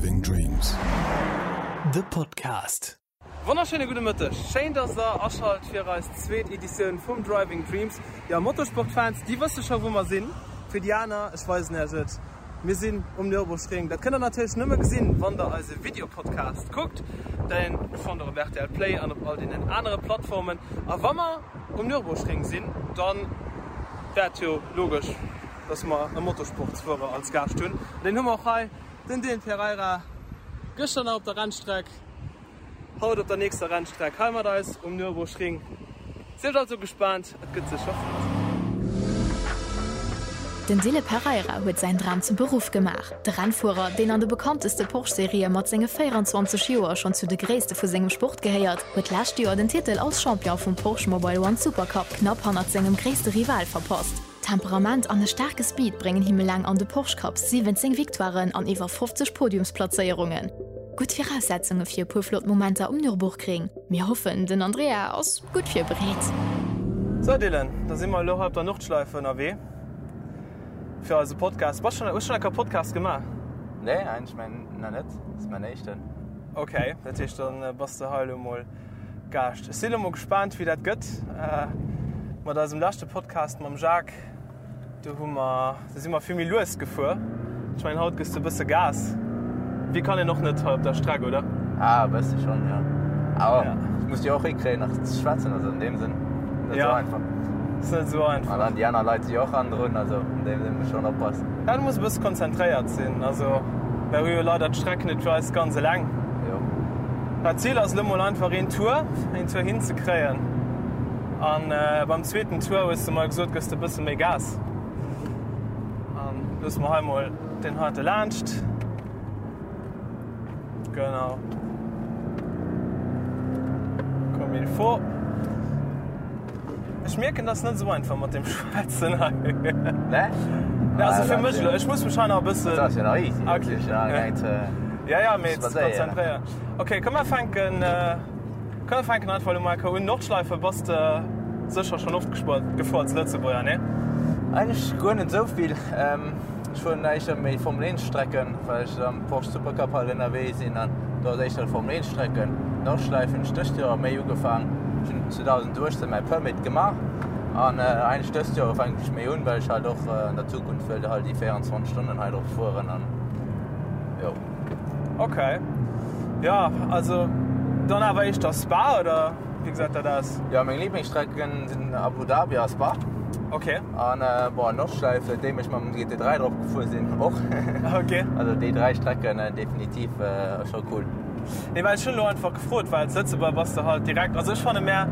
Driving Dreams. De Podcast. Wonnerschéine gudde Mëtteg, schéin dass der aschalt fir eis zweet Editioun vum Driving Dreams. Jo, Motorsportfans, déi wësse scho wou mer sinn. Fir déi aner, ech weisen iech et, mir sinn um Nürburgring. Dat kënnt der natierlech nëmme gesinn, wann der eise Videopodcast kuckt. Deen fannt der op rtl Play an op all deenen anere Plattformen. A wa mer um Nürburgring sinn, dann wär et jo logesch, dass mer e Motorsportsfuerer als Gaascht hunn. An deen hu mer och hei, den Dylan Pereira, gëschter nach op der Rennstreck, haut op der nächster Rennstreck hei mat eis um Nürburgring. Sieft also gespaant, et gëtt sécher flott. Den Dylan Pereira huet säin Dram zum Beruff gemaach. De Rennfuerer, deen an de bekannteste Porsche-Serië mat senge 24 Joer schonn zu de Gréisste vu sengem Sport gehéiert, huet d'lescht Joer den Titel als Champion vum Porsche Mobile One Supercup knapp hannert sengem gréisste Rival verpasst. Temperament an e staarke Speed bréngen him eleng an de Porsche Cups 17 Victoiren an iwwer 50 Podiumsplazéierungen. Gutt Viraussetzunge fir e puer flott Momenter um Nürburgring. Mir hoffen, den Andrea ass gutt virbereet. Sou Dylan, da si mer elo hei op der Nordschleife ënnerwee fir eise Podcast. Bass schon, hues schon eng Kéier Podcast gemaach? Nee, eigentlech mäin nach net. Dat ass mäin éischten. Ok, dat heescht dann bass de hei elo mol Gaascht. Ech si elo mol gespaant wéi dat gëtt mat eisem leschte Podcast mam Jacques. Do hu mer, do si mer vill méi lues gefuer. Ech mengen haut gëss de e bësse Gas. Wéi kann een och net hei op der Streck, oder? Ah, e bësse schonn, jo. Awer ja. ech muss jo och hikréien nach ze schwätzen, also an deem Sënn net ja. sou einfach. Ass net sou einfach. An dann déi aner Leit si jo och hannendrun, also an deem Sënn muss schonn oppassen. Ja, du muss e bësse konzentréiert sinn. Also mer hu jo leider d'Streck net fir eis ganz eleng. Jo. Dat Zil ass elo mol einfach een Tour, een Tour hinzekréien. An beim zweeten Tour hues de mer gesot, gëss de bësse méi Gas. An loosse mer hei mol deen heite laanscht. Genau. Comme il faut. Ech mierken, dat ass net esou einfach mat dem Schwätzen hei. Ne? Ja, also fir mech elo. Ech muss mech hei nach e bëssen. Dat ass jo nach easy. Okay. Ja, ja, mee konzentréieren. Okay, komm mer fänken. Komm mir fänken einfach elo mol enker un. Nordschleife bass de sécher schonn oft gefuer als Lëtzebuerger, nee? Eigentlech guer net esou vill. Ech fueren éischter méi Formel 1 Strecken, well ech am Porsche Supercup halt ënnerwee sinn an do ass éischter Formel 1 Strecken. Nordschleife hunn ech dëst Joer méi ugefaang. Ech hunn 2018 mäi Permit gemaach an eigentlech dëst Joer fänken ech méi un, well ech halt och an der Zukunft wëll halt déi 24 Stonnen hei drop fueren an jo. Ok. Ja, also dann awer éischter Spa oder wéi gesäit dat aus? Ja, meng Lieblingsstrecken sinn Abu Dhabi a Spa. Ok. An äh, bon, Nordschleife, seitdem ech mam GT3 drop gefuer sinn, och. Ok. Also déi 3 Strecken äh, definitiv äh, scho cool. Nee, well ech hunn elo einfach gefrot, well als Lëtzebuerger bass de halt direkt, also ech fanne mär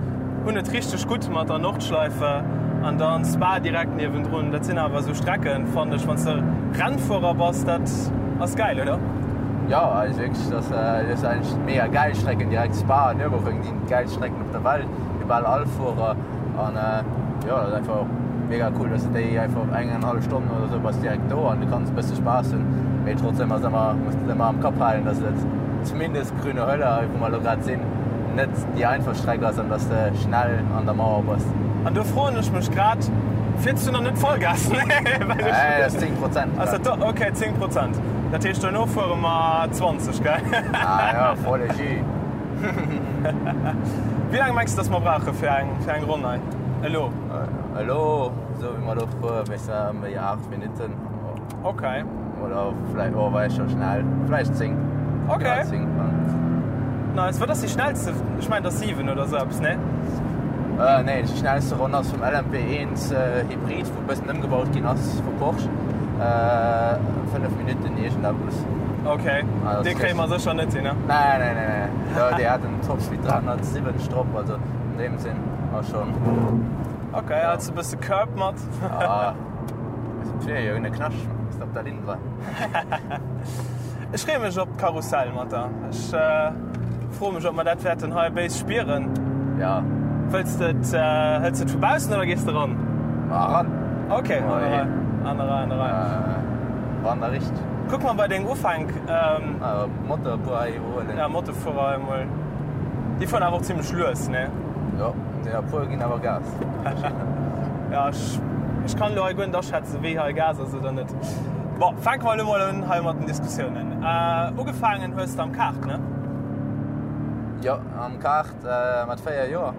hunn et richteg gutt mat der Nordschleife an dann Spa direkt niewendrun. Dat sinn awer esou Strecken, fannen ech, wann s de Rennfuerer bass, dat ass gäil, oder? Jo, also wierklech, dat ass eigentlech mega gäil Strecken, direkt Spa an Nürburgring sinn d'gäilst Strecken op der Welt fir bal all Fuerer an jo, dat ass einfach mega cool, dass de déi einfach eng eng hallef Stonn oder sou bass direkt do an du kanns e bësse Spaass hunn, mee trotzdem ass ëmmer, muss de ëmmer am Kapp halen, dass et zumindest Grüne Hölle, hei wou mer elo grad sinn, net déi einfach Streck ass an dass de schnell an der Mauer bass. An do froen ech mech grad, fiers du nach net Vollgas? Nee, well ech. Nee, dat ass 10 Prozent. Ass dat do? Ok, 10 Prozent. Dat heescht dono fuere mer 20, gell? Ah ja, volle Jus. Wéi laang mengs du, dass mer brauche fir eng, fir eng Ronn hei elo? Elo, esou wéi mer elo fueren, wéi se ëm déi 8 Minutten. Ok. Oder vläicht, oh, war scho schnell. Vläicht 10. Ok. Ja, 10. Nice. Wat ass déi schnellste? Ech mengen, dat ass 7 oder esou eppes, nee? Äh, nee, déi schnellste Ronn ass vum LMP1 äh, Hybrid, wou e bëssen ëmgebaut ginn ass vu Porsche. Äh, 5 Minutten iergendeppes. Ok. Also, Dee kréie mer sécher net hin, ne? Nee, nee, nee, nee. Jo, déi hat en Topspeed 370 drop, also an deem Sinn ass schon. Ok, hals e bësse Curb mat. Ah. Fir jo ne Knascht op der Linn war. Ech freeë mech op d'Karussell mat der. Ech froe mech, ob mer dat wäerten hei béis spieren. Ja. Wëlls de et, hëls de et vu baussen oder gees de ran? Ma ran. Ok, an der Rei. An der Rei, an der Rei. Ran da richteg. Kuck mer bei deng Ufänk. Motorfuer hei iwwerhuelen. Ja, Motorfuerer hei emol. Déi fueren awer och zimlech lues, ne? Jo, déi e puer ginn awer Gas. Ja, ech, ech kann elo hei guer net aschätzen, wéi hei Gas ass oder net. Bon, fänke mer elo mol un hei mat den Diskussiounen. Ugefaangen hues de am Kart, ne? Jo, am Kart mat 4 Joer.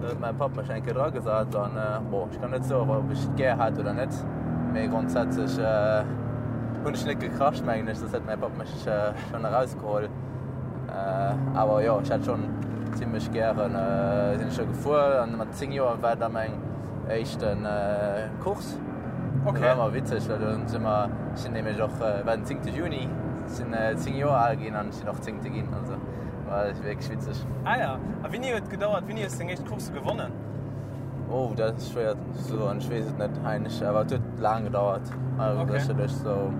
Do huet mäi Papp mech eng Kéier dragesat an bon, ech kann net soen, ob ech et gär hat oder net, mee grondsätzlech hunn ech net gekracht, mengen ech, soss hätt mäi Papp mech schonn erausgeholl. Awer jo, ech hat schonn zimmlech gären, sinn ech scho gefuer an mat 10 Joer war da meng éischten Course. Okay. Dat war ëmmer witzeg, well do si mer, ech sinn nämlech och, war den 10. Juni, sinn 10 Joer al ginn an ech sinn och Zéngte ginn, also war wierklech witzeg. Ah ja, a wéini huet et gedauert, wéini hues de deng éischt Course gewonnen? Oh, dat ass schwéier ze soen, ech weess et net eigentlech, awer et huet laang gedauert, also Okay. sécherlech sou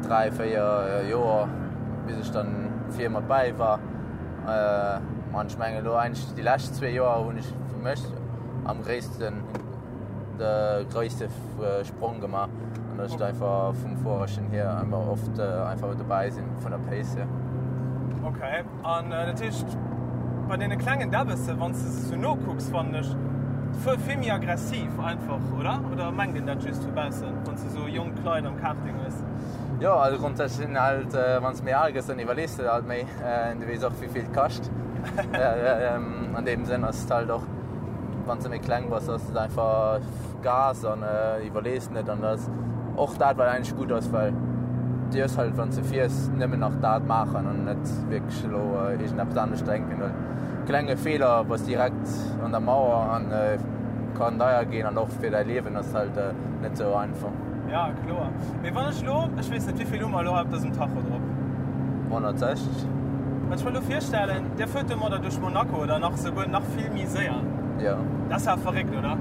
3, 4 Joer, bis ech dann vir mat bäi war. An ech mengen elo eigentlech déi lescht zwee Joer hunn ech fir mech am gréissten de gréisste Sprong gemaach an dass ech einfach vum Fuererchen hier einfach oft einfach dobäi sinn vun der Pace hier. Okay, an dat heescht bei deene klengen Däbbesse wann s de se sou nokucks fannen ech fuer vill méi aggressiv einfach, oder? Oder mengt een dat just vu baussen wann s de sou jonk Leit am Karting hues? Jo, also grundsätzlich sinn halt wann s méi al gëss dann iwwerlees de halt méi, du weess och wéivill et kascht. An deem Sënn ass et halt och wann s de méi kleng bass ass et einfach Gas an iwwerlees net an dat ass och dat wat eigentlech gutt ass, well dierfs halt wann s de fiers nëmmen nach dat maachen an net wierklech elo iergendeppes anescht denken, well klenge Feeler bass direkt an der Mauer an kann deier ginn an och fir däi Liewen ass halt net esou einfach. Ja kloer. Mee wann ech lo, ech weess net wéivill hu mer elo hei op dësem Tacho drop? 160. Wann ech mer elo virstellen, der fuert domadder duerch Monaco oder nach souguer nach vill méi séier. Jo. Dat ass awer verréckt, oder?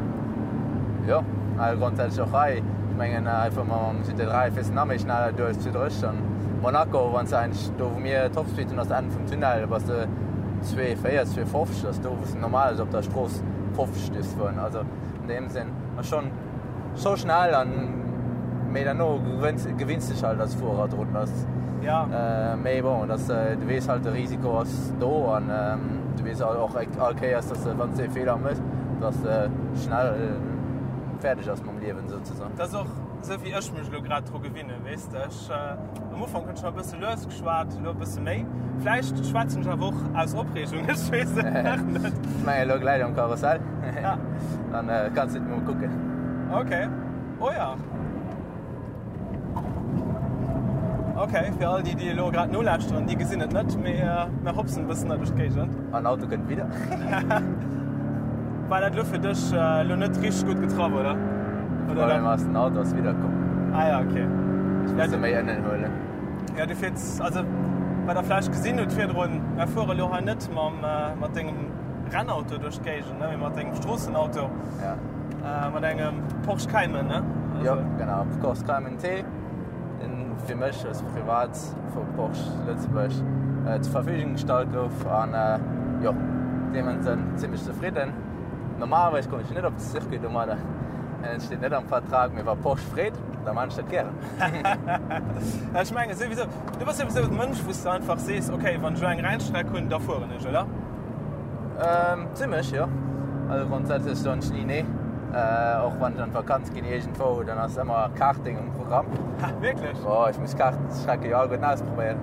Jo, also grondsätzlech och hei. Ech mengen einfach mam GT3 fiers de nach méi schnell duerch zu dréch an Monaco, wann s de eigentlech do wou mir Topspeed hunn ass Enn vum Tunnel, da bass de 2,40, 2,50, dat ass do wou s de normalerweis op der Strooss 50 dierfs fueren. Also an deem Sënn ass schonn. Scho schnell an mee derno gewënns gewinns dech halt als Fuerer drun dass ja. äh, mee bon dass äh, du weess halt de Risiko ass do an ähm, du weess och all Kéiers dass de wann s de e Feeler mëss dass de schnell äh, fäerdeg ass mam Liewen souzesoen. Dat ass och sou wéi ech mech elo grad dru gewinne weess de. Ech äh, am Ufank hunn ech nach e bësse lues geschwat, elo e bësse méi. Vläicht schwätzen ech awer och aus Opreegung, ech weess et nach net. Ech mengen elo gläich am Karussell. Ja. Dann äh, kannst du mol kucken. Okay. Oh ja. Okay, fir all déi, déi elo grad nolauschteren, déi gesinn et net, mee äh, mir hopsen e bëssen hei duerch d'Géigend. An Auto kënnt wieder. War dat elo fir dech äh, elo net richteg gutt getraff, oder? Oder Problem ass, den Auto ass wiederkomm. Ah ja, okay. Ich muss ja, méi ënnen huelen. Ja, du fiers, also wat der vläicht gesinn hutt virdrun, mir fuere elo hei net mam, äh, mat dengem Rennauto duerch d'Géigend, ne, mee mat engem Stroossenauto. Ja. Äh, mat engem Porsche Cayman, ne? Also, jo, genau, Porsche Cayman T, den fir mech als privat vu Porsche Lëtzebuerg äh, zur Verfügung gestallt gouf an äh, jo, deem Sënn zimmlech zefridden. Normalerweis komme ech net op de Circuit domadder, et steet net am Vertrag, mee wa Porsche freet, da man ech dat gären. Ja, ech menge souwisou, du bass souwisou e Mënsch, wou s de einfach sees, okay, wann ech elo eng Rennstreck hunn, da fueren ech, oder? Ähm, zimmlech, jo. Also grundsätzlech soen ech ni nee. Äh, och wann ech an d'Vakanz ginn iergendwou, dann ass ëmmer Karting um Programm. Ha, wierklech? Oh, ech muss Kartstrecke jo alleguerten ausprobéieren.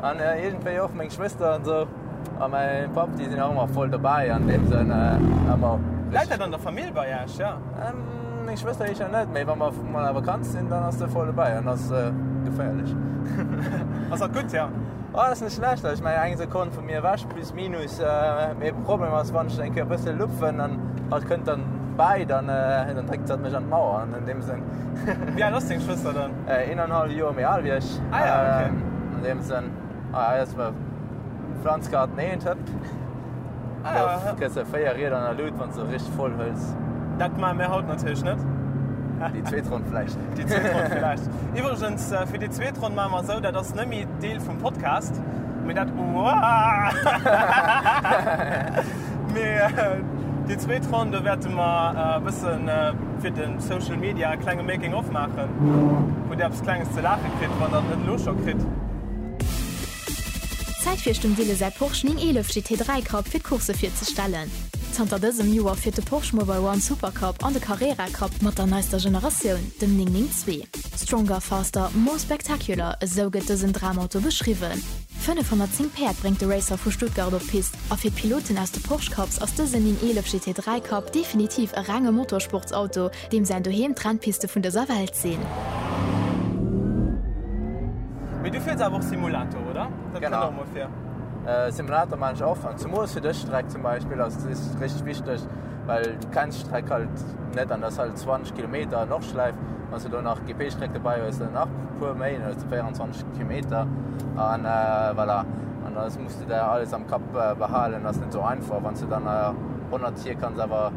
An äh, iergendwéi och meng Schwëster an esou a mäi Papp, déi sinn och ëmmer voll dobäi an deem Sënn äh, ëmmer. Läit dat an der Famill bei Iech, ja? Ähm, meng Schwëster éischer net, mee wa mer mol a Vakanz sinn, dann ass se voll dobäi an ass äh, geféierlech. Ass dat gutt, ja? Oh, dat ass net schlecht. Also, ech mengen, eng Sekonn vu mir ewech, plus minus. Mee Problem ass, wann ech eng Kéier e bësse lupfen an hatt kënnt dann bäi, dann, dann dréckt hatt mech an d'Mauer an an deem Sënn. Wéi al ass deng Schwëster dann? Eenanhalwe Joer méi al wéi ech. Ah ja, okay. An deem Sënn, ah, hei ass mer Pflanzgarten 1, hëpp. Ah ja, Da kriss de 4 Rieder an der Lut, wann s de richteg voll hëls. Dat maache mir haut natierlech net. Déi zweet Ronn vläicht. Déi zweet Ronn vläicht. Iwwregens, fir déi zweet Ronn maache mer esou, dat ass net méi Deel vum Podcast, mee dat, mee déi zweet Ronn, do wäerte mer e bësse fir de Social Media e klenge Making of maachen, wou Dir eppes Klenges ze laache kritt, wann Der et net elo scho kritt. Zäit fir dem Wille säi Porsche 911 GT3 Cup fir d'Course virzestellen. Zanter dësem Joer fiert de Porsche Mobile One Supercup an de Carrera Cup mat der neister Generatioun, dem 992. Stronger, faster, more spectacular, esou gëtt dësen Dramauto beschriwwen. 510 Päerd bréngt de Racer vu Stuttgart op d'Pist a fir d'Piloten aus de Porsche Cups ass dësen 911 GT3 Cup definitiv e renge Motorsportsauto, deem säin Doheem d'Rennpiste vun dëser Welt sinn. Mee du fiers awer och Simulator, oder? Dat kënnt och mol vir. Simulator maan ech och, an zumols fir dës Streck zum Beispill ass et richteg wichteg, well du kenns d'Streck halt net an dat ass halt 20 Kilometer Nordschleif. Wann s du do nach GP-Streck dobäi hues, dann nach e puer méi, dann hues du 24 Kilometer an voilà. An da muss du der alles am Kapp behalen, ass net sou einfach. Wann s du dann 100 hier kanns awer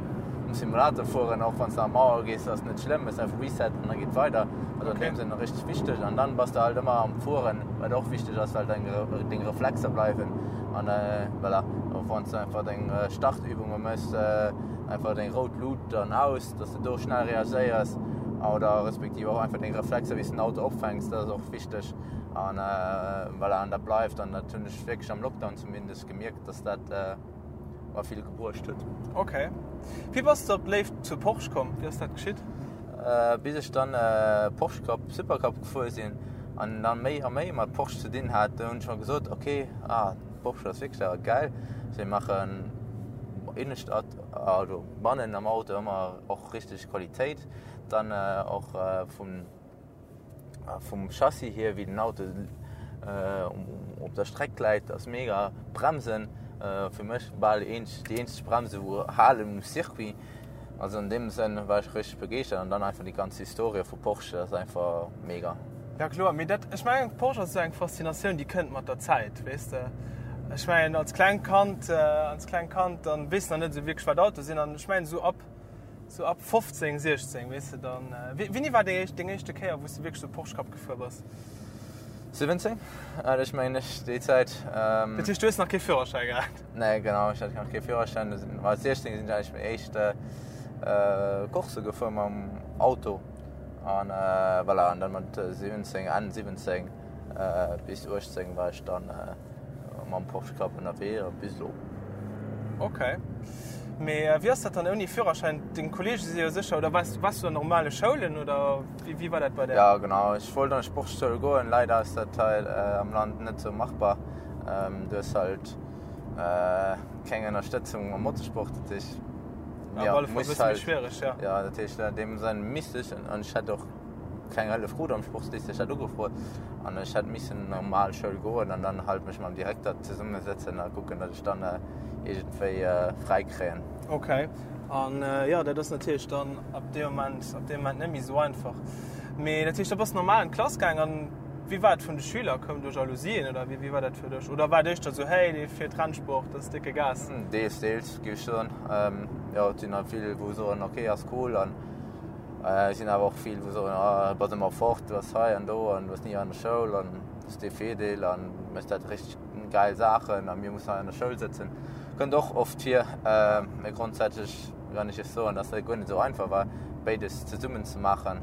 um Simulator fueren, och wann s de an d'Mauer gees, ass net schlëmm, méchs einfach Reset an da geet weider. Also an deem Sënn richteg wichteg. An dann bass de halt ëmmer am Fueren, wat och wichteg ass, well deng deng Reflexer bleiwen an voilà. Och wann s de einfach deng Startübunge méchs, einfach deng rout Lut an aus, dass de do schnell reagéiers oder respektiv och einfach deng Reflexer, wéi s de den Auto opfänks, dat ass och wichteg an voilà. An dat bleift an dat hunn ech wierklech am Lockdown zumindest gemierkt, dass dat mer vill gebruecht huet. Ok. Wéi bass de op d'Léift zu Porsche komm? Wéi ass dat geschitt? Bis ech dann Porsche Cup, Super Cup gefuer sinn an dann méi a méi mat Porsche ze dinn hat, do hunn ech mer gesot, ok, ah Porsche ass wierklech awer gäil. Si maachen innescht, also bannen am Auto ëmmer och richteg Qualitéit. Dann och vum Vum Chassis hier, wéi den Auto op der Streck läit, ass mega. Bremsen, fir mech bal déi eenzeg Bremse wou halen um Circuit. Also an deem Sënn war ech richteg begeeschtert an dann einfach déi ganz Historie vu Porsche ass einfach mega. Ja kloer, mee dat, ech mengen Porsche ass esou eng Faszinatioun déi kënnt mat der Zäit, weess de. Ech mengen als klengt Kand, als klengt Kand dann weess de nach net esou wierklech wat Auto sinn an ech mengen esou ab Sou ab 15, 16, weess de dann. Wéini war déi éischt, deng éischte Kéier, wou s de wierklech sou Porsche Cup gefuer bass? 17, hat ech mengen ech, déi Zäit. Dat heescht, du hues nach kee Führerschäi gehat? Nee, genau, ech hat nach kee Führerschäin. Du sinn, mat 16 sinn ech eigentlech meng éischt Course gefuer mam Auto. An voilà, an dann mat 17, Enn 17 bis 18 war ech dann Mam Porsche Cup ënnerwee a bis elo. Ok. Mee wéi ass dat dann ouni Führerschäin? Deng Kolleege si jo sécher, oder waars, waars du an normale Schoulen oder wéi, wéi war dat bei där? Ja genau, ech wollt an d'Sportschoul goen, leider ass dat hei am Land net sou machbar. Du hues halt keng Ënnerstëtzung am Motorsport, dat heescht, ja, op alle Fall e bësse méi schwiereg, ja. Ja, dat heescht an deem Sënn misst ech an ech hätt och keng Hëllef krut am Sportslycée, ech hat ugefrot an ech hätt missen an normal Schoul goen an dann halt mech mam Direkter zesummesëtzen a kucken, datt ech dann iergendwéi fräi kréien. Ok, an jo, dat ass natierlech dann ab deem Moment, ab deem Moment net méi esou einfach. Mee dat heescht, da bass de normal an d'Klass gaang an wéi war et vun de Schüler? Koumen do Jalousien oder wéi, wéi war dat fir dech? Oder war et éischter esou, hey, dee fiert Rennsport, dat ass décke Gas? Deels, deels, géif ech soen. Jo, et sinn der vill, wou soen, ok, ass cool an Et sinn awer och vill, wou soen, ah, bass ëmmer fort, du bass hei an do an du bass ni an der Schoul an du bass dee Fedel an méchs dat richteg gäil Saachen a mir mussen hei an der Schoul sëtzen. Kënnt och oft vir. Mee grondsätzlech kann ech iech soen, dass dat guer net esou einfach war, béides zesummen ze maachen,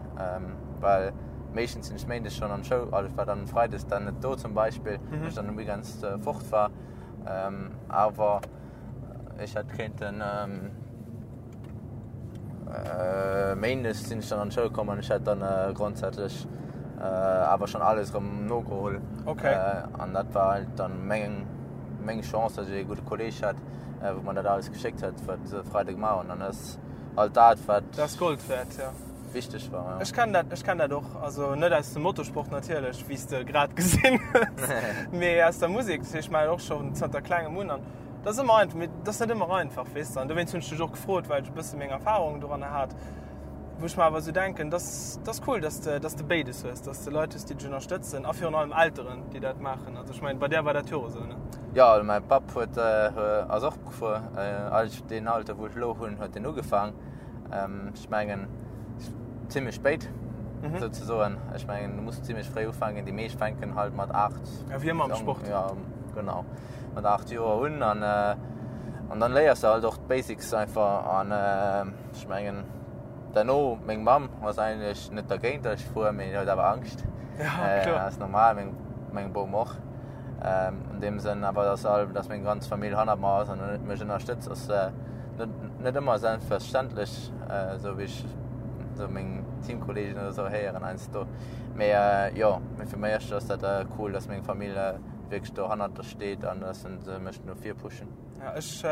well meeschtens sinn ech méindes schonn an d'Schoul, also ech war dann freides dann net do zum Beispill, well ech dann um Weekends fort war. Awer ech hätt kéinten. Méindes sinn ech dann an d'Schoul komm an ech hat dann grondsätzlech awer schonn alles erëm nogeholl. Okay. An dat war halt dann meng meng Chance, datt ech ee gudde Kolleeg hat, wou mer dat alles geschéckt huet, wat se Freide gemaach hunn. An dat ass halt dat, wat. Dat ass Gold wäert, ja. Wichteg war, ja. Ech kennen dat, ech kennen dat och. Also net aus dem Motorsport natierlech, wéi s de grad gesinn hues, mee aus der Musek. Dat heescht, ech maachen och schonn zanter klengem un an. Dat ass ëmmer einfach, mee dat ass net ëmmer einfach, weess de. An dowéinst hunn ech dech och gefrot, well ech e bësse meng Erfahrungen doranner hat, wou ech mer awer esou denken, dass dat ass cool, dass de, dass de béides hues, dass de Leit hues, déi dech ënnerstëtzen a virun allem Elteren, déi dat maachen. Also ech mengen, bei där war dat jo och esou, ne? Jo, also mäi Papp huet, ass och gefuer. Eigentlech deen Alter, wou ech elo hunn, huet en ugefaang. Ech mengen zimmlech spéit souzesoen. Ech mengen, du muss zimmlech fréi ufänken. Déi meescht fänken halt mat 8. Ja, wéi ëmmer am Sport. Ja, genau. Mat 8 Joer un an an dann léiers de halt och d'Basics einfach an ech mengen derno, meng Mamm ass eigentlech net dergéint, datt ech fuer, mee huet awer Angscht. Ja, kloer. Ass normal, meng meng Bom och. An deem Sënn awer, datt all, datt meng ganz Famill hannert mer ass an mech ënnerstëtzt, ass. Net, net ëmmer selbstverständlech, esou wéi ech esou meng Teamkolleegen oder esou héieren heiansdo. Mee jo, mee fir mech ass dat cool, dass meng Famill wierklech do hannert der steet an dass se mech no vir pushen. Ja, ech,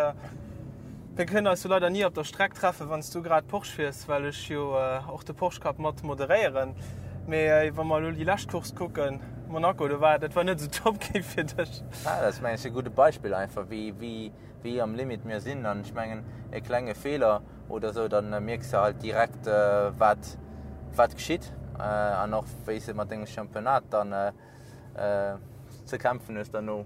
mir kënnen eis jo leider ni op der Streck treffen, wann s du grad Porsche fiers, well ech jo och de Porsche Cup mat moderéieren. Mee wa mer elo déi lescht Course kucken, Monaco, do war, dat war net esou top gi fir dech. Ja, dat ass mengen ech e gudde Beispill einfach, wéi, wéi, wéi am Limit mir sinn an ech mengen e klenge Feeler oder esou, dann mierks de halt direkt wat wat geschitt an och wéi s de mat dengem Championnat dann ze kämpfen hues derno,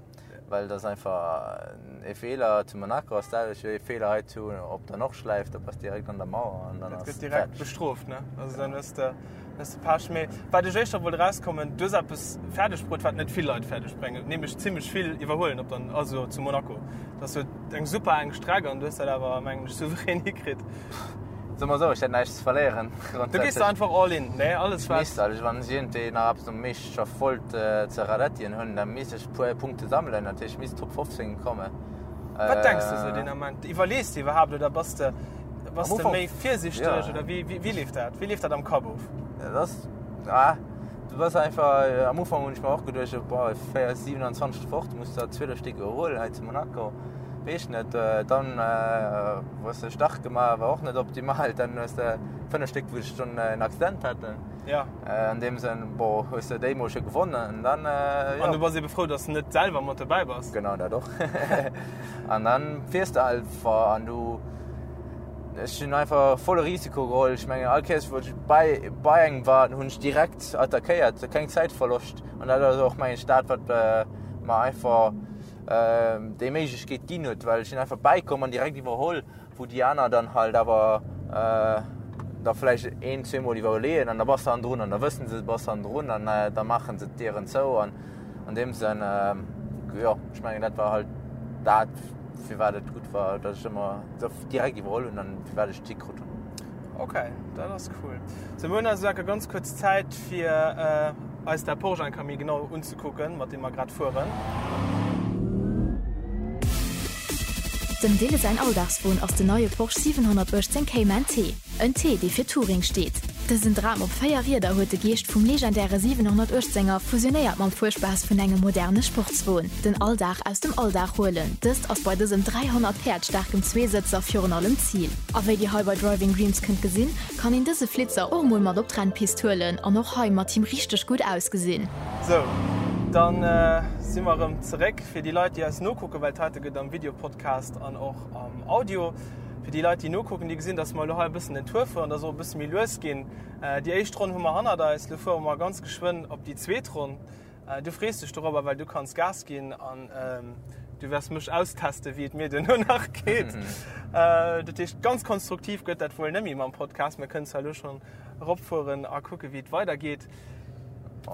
well dat ass einfach e Feeler zu Monaco ass d'selwecht wéi e Feeler hei zu op der Nordschleife, da bass direkt an der Mauer an dann ass gëtt direkt bestrooft ne, also dann hues de hues de Pech. Mee wat ech éischter wollt erauskommen, du hues eppes fäerdeg bruet wat net vill Leit fäerdeg bréngen, nämlech zimmlech vill iwwerhuelen op der also zu Monaco. Dat ass jo eng super enk Streck an du hues dat awer mengen ech souverän hikritt. Soe mer esou, ech hätt näischt ze verléieren. Du gees da einfach all in, ne? Alles wat. Ech misst, also wann ech iergendwéi nach eppes um Meeschterschaft wollt ze radettien hunn, da misst ech e puer Punkte sammelen, dat heescht ech misst Top 15 kommen. Wat denks de sou deen Ament? Iwwerlees de iwwerhaapt oder bass de bass de méi virsichteg oder wéi wéi leeft dat? Wéi leeft dat am Kapp of? Dat ass, ah, du bass einfach, am Ufank hunn ech mer och geduecht, boah, 27 fort, muss der 12 Stéck iwwerhuelen hei zu Monaco. Weess net, dann hues de Start gemaach, war och net optimal, dann hues de 5 Stéck wou ech schon en Accident haten. Ja. An deem Sënn, bon, hues de déi mol scho gewonnen an dann, jo. An du bass ebe frou, dass de net selwer mat dobäi bass. Genau, dat och. An dann fiers de einfach an du, ech hunn einfach volle Risiko geholl. Ech mengen all Kéiers wou ech bei, bei engem war, hunn ech direkt attackéiert, keng Zäitverloscht. An dat ass och mengen ech dat wat mer einfach déi Méiglechkeet ginn huet, well ech sinn einfach bäikomm an direkt iwwerholl, wou déi aner dann halt awer da vläicht een, zweemol iwwerleeën an da bass de hannendrun an da wëssen se, du bass hannendrun an da maache se d'Dieren zou an an deem Sënn, jo, ech mengen dat war halt dat, firwat et gutt war, datt ech ëmmer direkt iwwerholl hunn an firwat ech d'Tick krut hunn. Ok, dat ass cool. Sou, mir hunn also enke ganz kuerz Zäit fir eis dat Porsche enker méi genau unzekucken, mat deem mer grad fueren. Dem Dille säin Alldagswon ass den neie Porsche 718 Cayman T. En T, dee fir Touring steet. Dësen Dram op 4 Rieder huet de Geescht vum legendäre 718 er fusionéiert mam Fuerspaass vun engem moderne Sportswon. Den Alldag aus dem Alldag huelen, dëst ass bei dësem 300 Päerd staarken Zweesëtzer virun allem d'Zil. A wéi dir hei bei Driving Dreams kënnt gesinn, kann een dëse Flitzer och mol mat op d'Rennpist huelen an och hei mat him richteg gutt ausgesinn. Sou, dann si mer erëm zeréck. Fir déi Leit, déi eis nokucken, well d'heite gëtt am Videopodcast an och am Audio. Fir déi Leit, déi nokucken, déi gesinn, dass mer elo hei e bëssen den Tour fueren, dass och e bësse méi lues ginn. Déi éischt Ronn hu mer hannert eis, elo fuere mer ganz geschwënn op déi zweet Ronn. Du frees dech dorobber, well du kanns Gas ginn an du wäers mech austesten, wéi et mir duerno nach geet. Dat heescht, ganz konstruktiv gëtt dat wuel net méi mam Podcast. Mir kënnen zwar elo schonn eropfueren a kucken, wéi et weidergeet.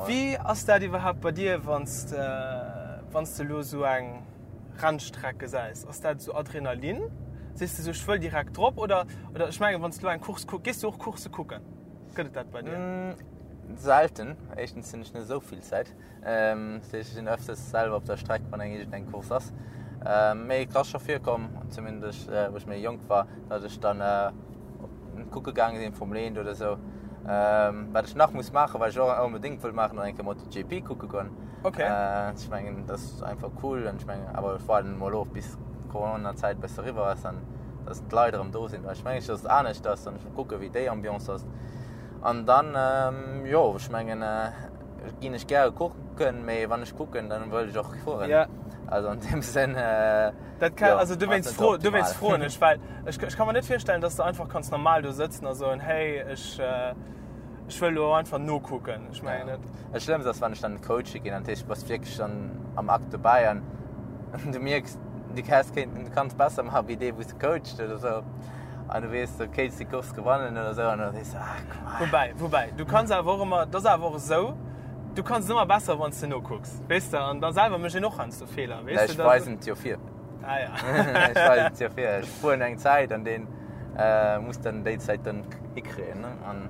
Wéi ass dat iwwerhaapt bei dir, wann s de, wann s de elo esou eng Rennstreck gesäis? Ass dat esou Adrenalin? Sees de esou, ech wëll direkt drop? Oder, oder ech mengen, wann s de elo eng Course kucks, gees du och Coursse kucken? Gëtt et dat bei dir? Selten. Éischtens hunn ech net esou vill Zäit. Dat heescht, ech sinn öfters selwer op der Streck, wann eng iergendeng Course ass. Mee et ass scho virkomm, zumindest wou ech méi jonk war, datt ech dann kucke gaange sinn, Formel 1 oder esou. Wat ech nach muss maachen, wat ech och onbedéngt wëll maachen, ass eng Kéier MotoGP kucke goen. Okay. Ech mengen, dat ass einfach cool an ech mengen, awer ech waarden emol of, bis d'Corona-Zäit e bësse eriwwer ass an datt d'Leit erëm do sinn, well ech mengen, datt et anescht ass an ech wëll kucke wéi déi Ambiance ass. An dann, jo, ech mengen, ginn ech gäre kucken, mee wann ech kucken, dann wëll ech och fueren. Ja. Also an deem Sënn, Dat kann, also dowéinst fro, dowéinst froen ech, well ech, ech ka mer net virstellen, dass du einfach kanns normal do sëtzen a soen, hey, ech, ech wëll elo einfach nokucken. Ech mengen net. Dat Schlëmmst ass, wann ech dann coache ginn, an dat heescht, du bass wierklech dann am Akt dobäi an du mierks, du häss kéinten, du kanns besser maachen wéi dee, wou s de coacht oder sou. An du weess, du kéints déi Course gewannen oder sou an da sees du, ah, komm. Woubäi, woubäi, du kanns awer och ëmmer, dat ass awer och esou, du kanns et ëmmer besser, wann s de nokucks, weess de, an da selwer mécht een och heiansdo Feeler, weess de. Ech weisen et jo vir. Ah ja. Ech weisen et jo vir. Ech fueren eng Zäit an deen muss dann déi Zäit dann hikréien, ne? An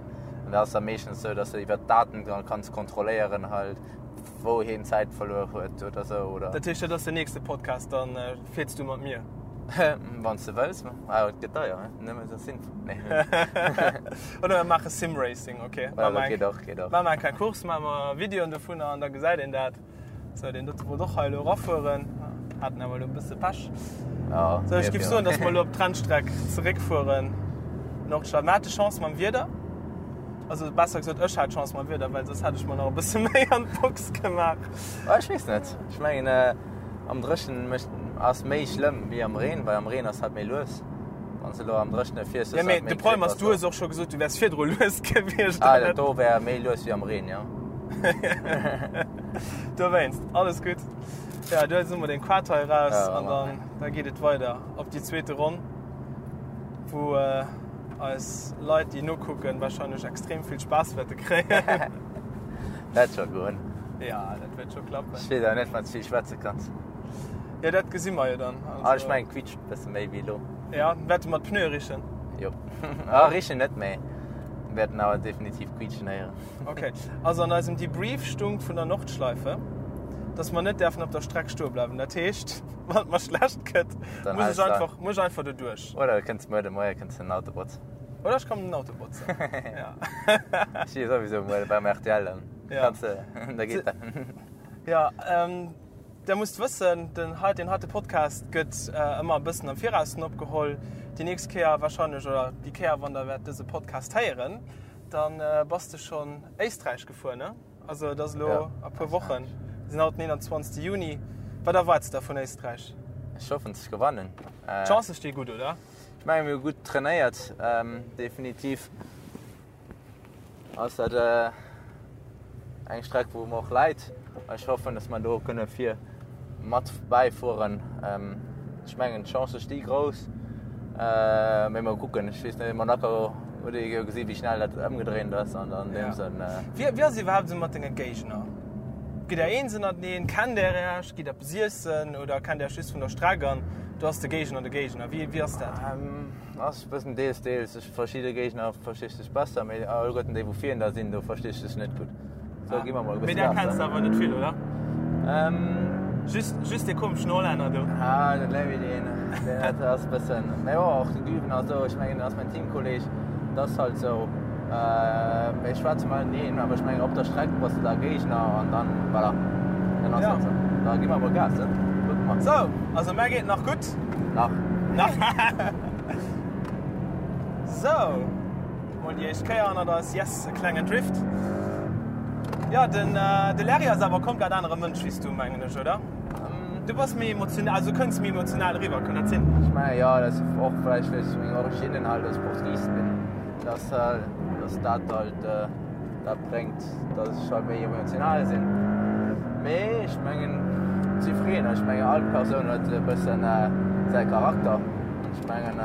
dat ass da meeschtens esou, dass de iwwer d'Daten dann kanns kontrolléieren halt, wou hien Zäit verluer huet oder sou, oder. Dat heescht, dat ass den nächste Podcast, dann fiers du mat mir? Wann s de wëlls, awer et gëtt deier, nëmme esou Sim. Nee. Oder mir maache Sim-Racing, okay. Ja, dat geet och, geet och. Maache mer eng kleng Course, maache mer Videoen dovunner an da gesäit een dat. Sou, deen dote wollt och hei elo erafueren, haten awer elo e bësse Pech. Ja, Sou, ech géif soen, dass mer elo op d'Rennstreck zeréckfueren. Nordschleife. Mer hate Chance mam Wieder. Also besser gesot, ech hat Chance mam Wieder, well soss hätt ech mer nach e bësse méi an d'Box gemaach. Ah, ech weess net. Ech mengen, äh, am Dréchnen mécht, ass méi schlëmm wéi am Reen, well am Reen ass halt méi lues. Wann s de elo am Dréchne fiers, Ja, hues mee halt méi de Problem Grip ass, a du sou. hues och scho gesot, du wäers virdru lues gewiescht. Ah, dat do wär méi lues wéi am Reen, jo. Dowéinst, alles gutt. Ja, du hues emol den Quad hei raus Ja, an dann, da geet et weider op déi zweete Ronn, wou äh, eis Leit, déi nokucken, wahrscheinlech extrem vill Spaass wäerte kréien. Dat scho goen. Ja, dat wäert scho klappen. Ech weess awer net, wann s vill schwätze kanns. Ja, dat gesi mer jo dann. Also, ah, ech mengen, quietscht e bësse méi wéi elo. Ja, wäerte mer d'Pneue richen? Jo. Ah, richen net, mee wäerten awer definitiv quietschen héieren. Okay. Also an eisem Debrief stung vun der Nordschleife, dass mer net däerfen op der Streck stoe bleiwen. Dat heescht, wann et mer schlecht gëtt, muss ech einfach, muss ech einfach doduerch. Oder du kënns muer de Moie kënns den Auto botzen. Oder ech kommen den Auto botzen. Ja. Ech si souwisou muer beim RTL, dann Ja. kanns de, da geet dat. Ja, ähm, Der musst wëssen, den hei, deen heite Podcast gëtt ëmmer e bëssen am Viraussen opgeholl. Déi nächst Kéier wahrscheinlech, oder déi Kéier, wann der wäert dëse Podcast héieren, dann bass de schonn Éisträich gefuer, ne? Also et ass elo a puer Wochen. Mir sinn haut den 21. Juni. Wat erwaarts de vun Éisträich? Ech hoffen ze gewannen. D'Chancë sti gutt, oder? Ech menge mir hu gutt trainéiert, definitiv ass dat eng Streck wou mer och läit. Ech hoffen, datt mer do kënne vir mat bäifueren. Ech mengen d'Chancë sti grouss, mee mol kucken. Ech weess net, Monaco huet ee jo gesi wéi schnell dat ëmgedréint ass an an deem Sënn. Wéi wéi ass et iwwerhaapt esou mat denge Géigner? Gitt der eens ënnerteneen? Kennt der Iech? Gitt der eppes iessen oder kennt der Iech just vun der Streck an do ass de Géigner de Géigner? Wéi wéi ass dat? Ass e bëssen deels deels. Ech verschidde Géigner versti ech sech besser, mee alleguerten déi wou virun der sinn, do versti ech sech net gutt. So gi mer mol e Mee bësse där Gas kenns de dann. awer net vill, oder? Ähm. Just, just dee komeschen Hollänner do. Ah, den Levi, deen, deen dat ass e bëssen, mee jo, och de Güven a sou, ech mengen, dat ass mäin Teamkolleg, dat ass halt sou. Äh, mir schwätze mateneen, awer ech mengen, op der Streck bass de da Géigner an dann, voilà, dann ass Ja. dat sou. Da gi mer mol Gas, ne? Kucke mer. Sou, also mär geet nach gutt. Nach. Nach. Sou, mol déi éischt Kéier hannert eis. Yes, e klengen Drift. Ja, den, äh, de Larry ass awer komplett anere Mënsch wéi s du, mengen ech, oder? Du bass méi emotional, also kënns méi emotional eriwwer, kann dat sinn? Ech mengen, jo, dat ass och vläicht, well ech meng Originnen halt als Portugies bin, dass, dass dat halt dat bréngt, dass ech halt méi emotional sinn. Mee ech mengen, si freeën, ech mengen, all Persoun huet e bëssen säi Charakter. Ech mengen.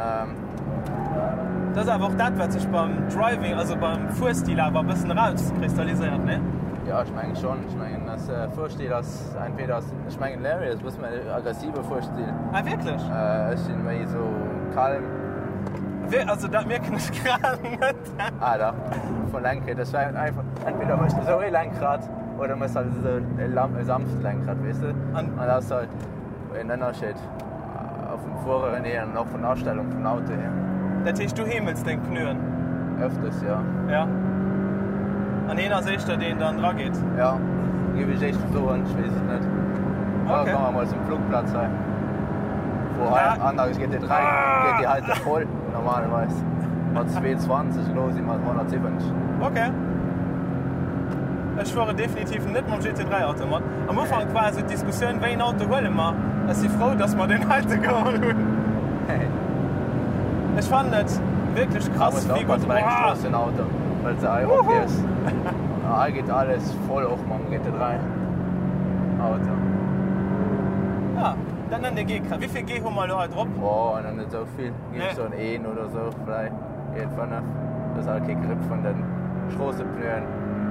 Dat ass awer och dat, wat sech beim Driving, also beim Fuerstil awer e bëssen erauskristalliséiert, ne? Jo, ech mengen schonn. Ech mengen, dass Fuerstil ass entweder ass, ech mengen Larry ass e bësse méi aggressive Fuerstil. Ah, wierklech? Ech sinn méi esou calm. Wéi, also dat mierken ech grad net. Ah dach, vum Lenkrad. Ech war einfach, entweder méchs de esou ee Lenkrad oder méchs halt esou e sanft Lenkrad, weess de? An An dat ass halt en Ënnerscheed. Vum Fueren hier an och vun der Astellung vum Auto hier. Dat heescht du heemels deng Pneuen? Öfters, jo. Ja. An heen ass éischter deen dann dra geet? Ja, géif ech éischter soen, ech weess et net. Okay. Da komme mer mol zum Flugplatz hei. Wou hei Ah. an der GT3 geet déi heite voll normalerweis. Mat 220, elo si mer 170. Okay. Ech fueren definitiv net mam GT3 Auto mat. Am Ufank war esou d'Diskussioun, wéi een Auto huele mer? Ech si frou, dass mer deen heite geholl hunn. Ech fannen et wierklech krass, wéi gutt. Bei engem Stroossenauto, well se hei ophiefs. Hei geet alles voll och mam GT3 Auto. Ja, dat nennt ee G-Kräft. Wéi vill G hu mer elo hei drop? Oh, nach net esou vill. Géif soen een oder esou vläicht. 1,5. Dat ass alt kee Grip vun den Stroossepneuen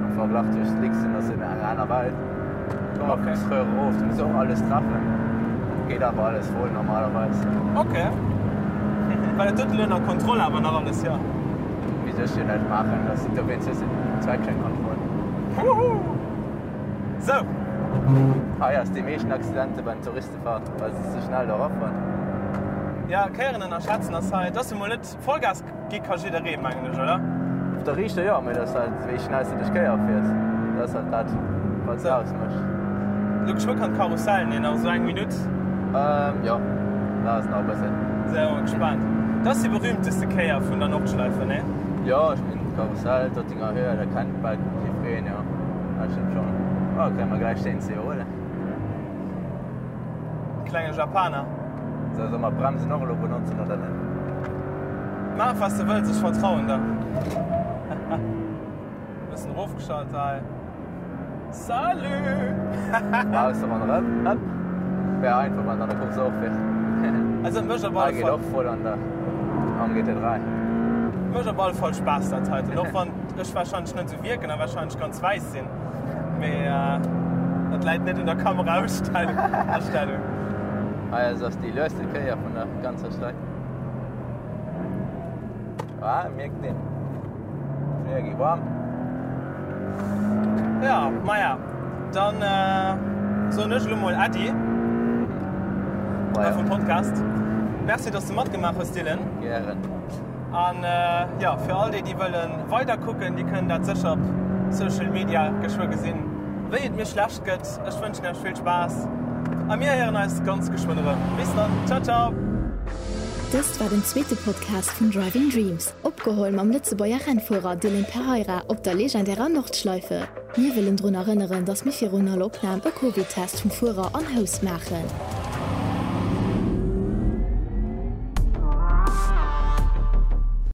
am Verglach zu Slicks sinn ass en eng aner Welt. Komm op okay. Röhre erof, du muss och alles treffen. Geet awer alles voll normalerweis. Okay. Well et huet elo ënner Kontroll awer nach alles, jo. Wéi soll ech jo näischt maachen, dat sinn dowéinst just Traction Control. Wuhu! Sou. Hei ass déi meeschten Accidente beim Touristefahrt, well se ze schnell do erafueren. Ja, Kéieren ënnerschätzen ass hei, et ass jo mol net Vollgas gi ka jidderee, mengen ech, oder? Op der Riichter jo, mee dat ass halt wéi schnell s de duerch d'Kéier fiers, dat ass halt dat wat et ausmécht. Elo geschwë kann d'Karussell, nee nach esou eng Minutt. Ähm jo, dat ass nach e bëssen. Sinn awer gespaant. Dat ass déi berühmteste Kéier vun der Nordschleife, nee? Jo, ech mengen d'Karussell, d'Dottinger Höhe, dat kennt bal jiddwereen, jo, dat stëmmt schonn. Oh, kréie mer gläich den CO, oder? Klenge Japaner. So, soll mer d'Bremsen och elo benotzen oder net? Maach was de wëlls, ech vertrauen der. Bëssen erofgeschalt hei. Salut! Ausser wann erëm, ëpp. Wär einfach, wann et an der Course och wär. Also et mécht op alle Hei geet Fall. och voll an der, am GT3. Mécht op alle Fall Spaass dat heiten, och wann ech wahrscheinlech net esou wierken a wahrscheinlech ganz wäiss sinn. Mee dat läit net un der Kameraastellung. Hei ass ass déi lueste Kéier vun der ganzer Streck. Ah, mierkt een. D'Pneue gi waarm. Ja, maja, dann soen ech elo mol Äddi vum Podcast. Merci, dass du matgemaach hues, Dylan. Gären. An jo, fir all déi, déi wëlle weider kucken, déi kënnen dat sécher op Social Media geschwë gesinn, wéi et mir schlecht gëtt. Ech wënschen iech vill Spaass a mir héieren eis ganz geschwënn erëm. Bis dann, ciao ciao! Dëst war den zweete Podcast vun Driving Dreams, opgeholl mam Lëtzebuerger Rennfuerer Dylan Pereira op der legendärer Nordschleife. Mir wëllen drun erënneren, dass mir virun all Opnam e Covid-Test vum Fuerer an Host maachen.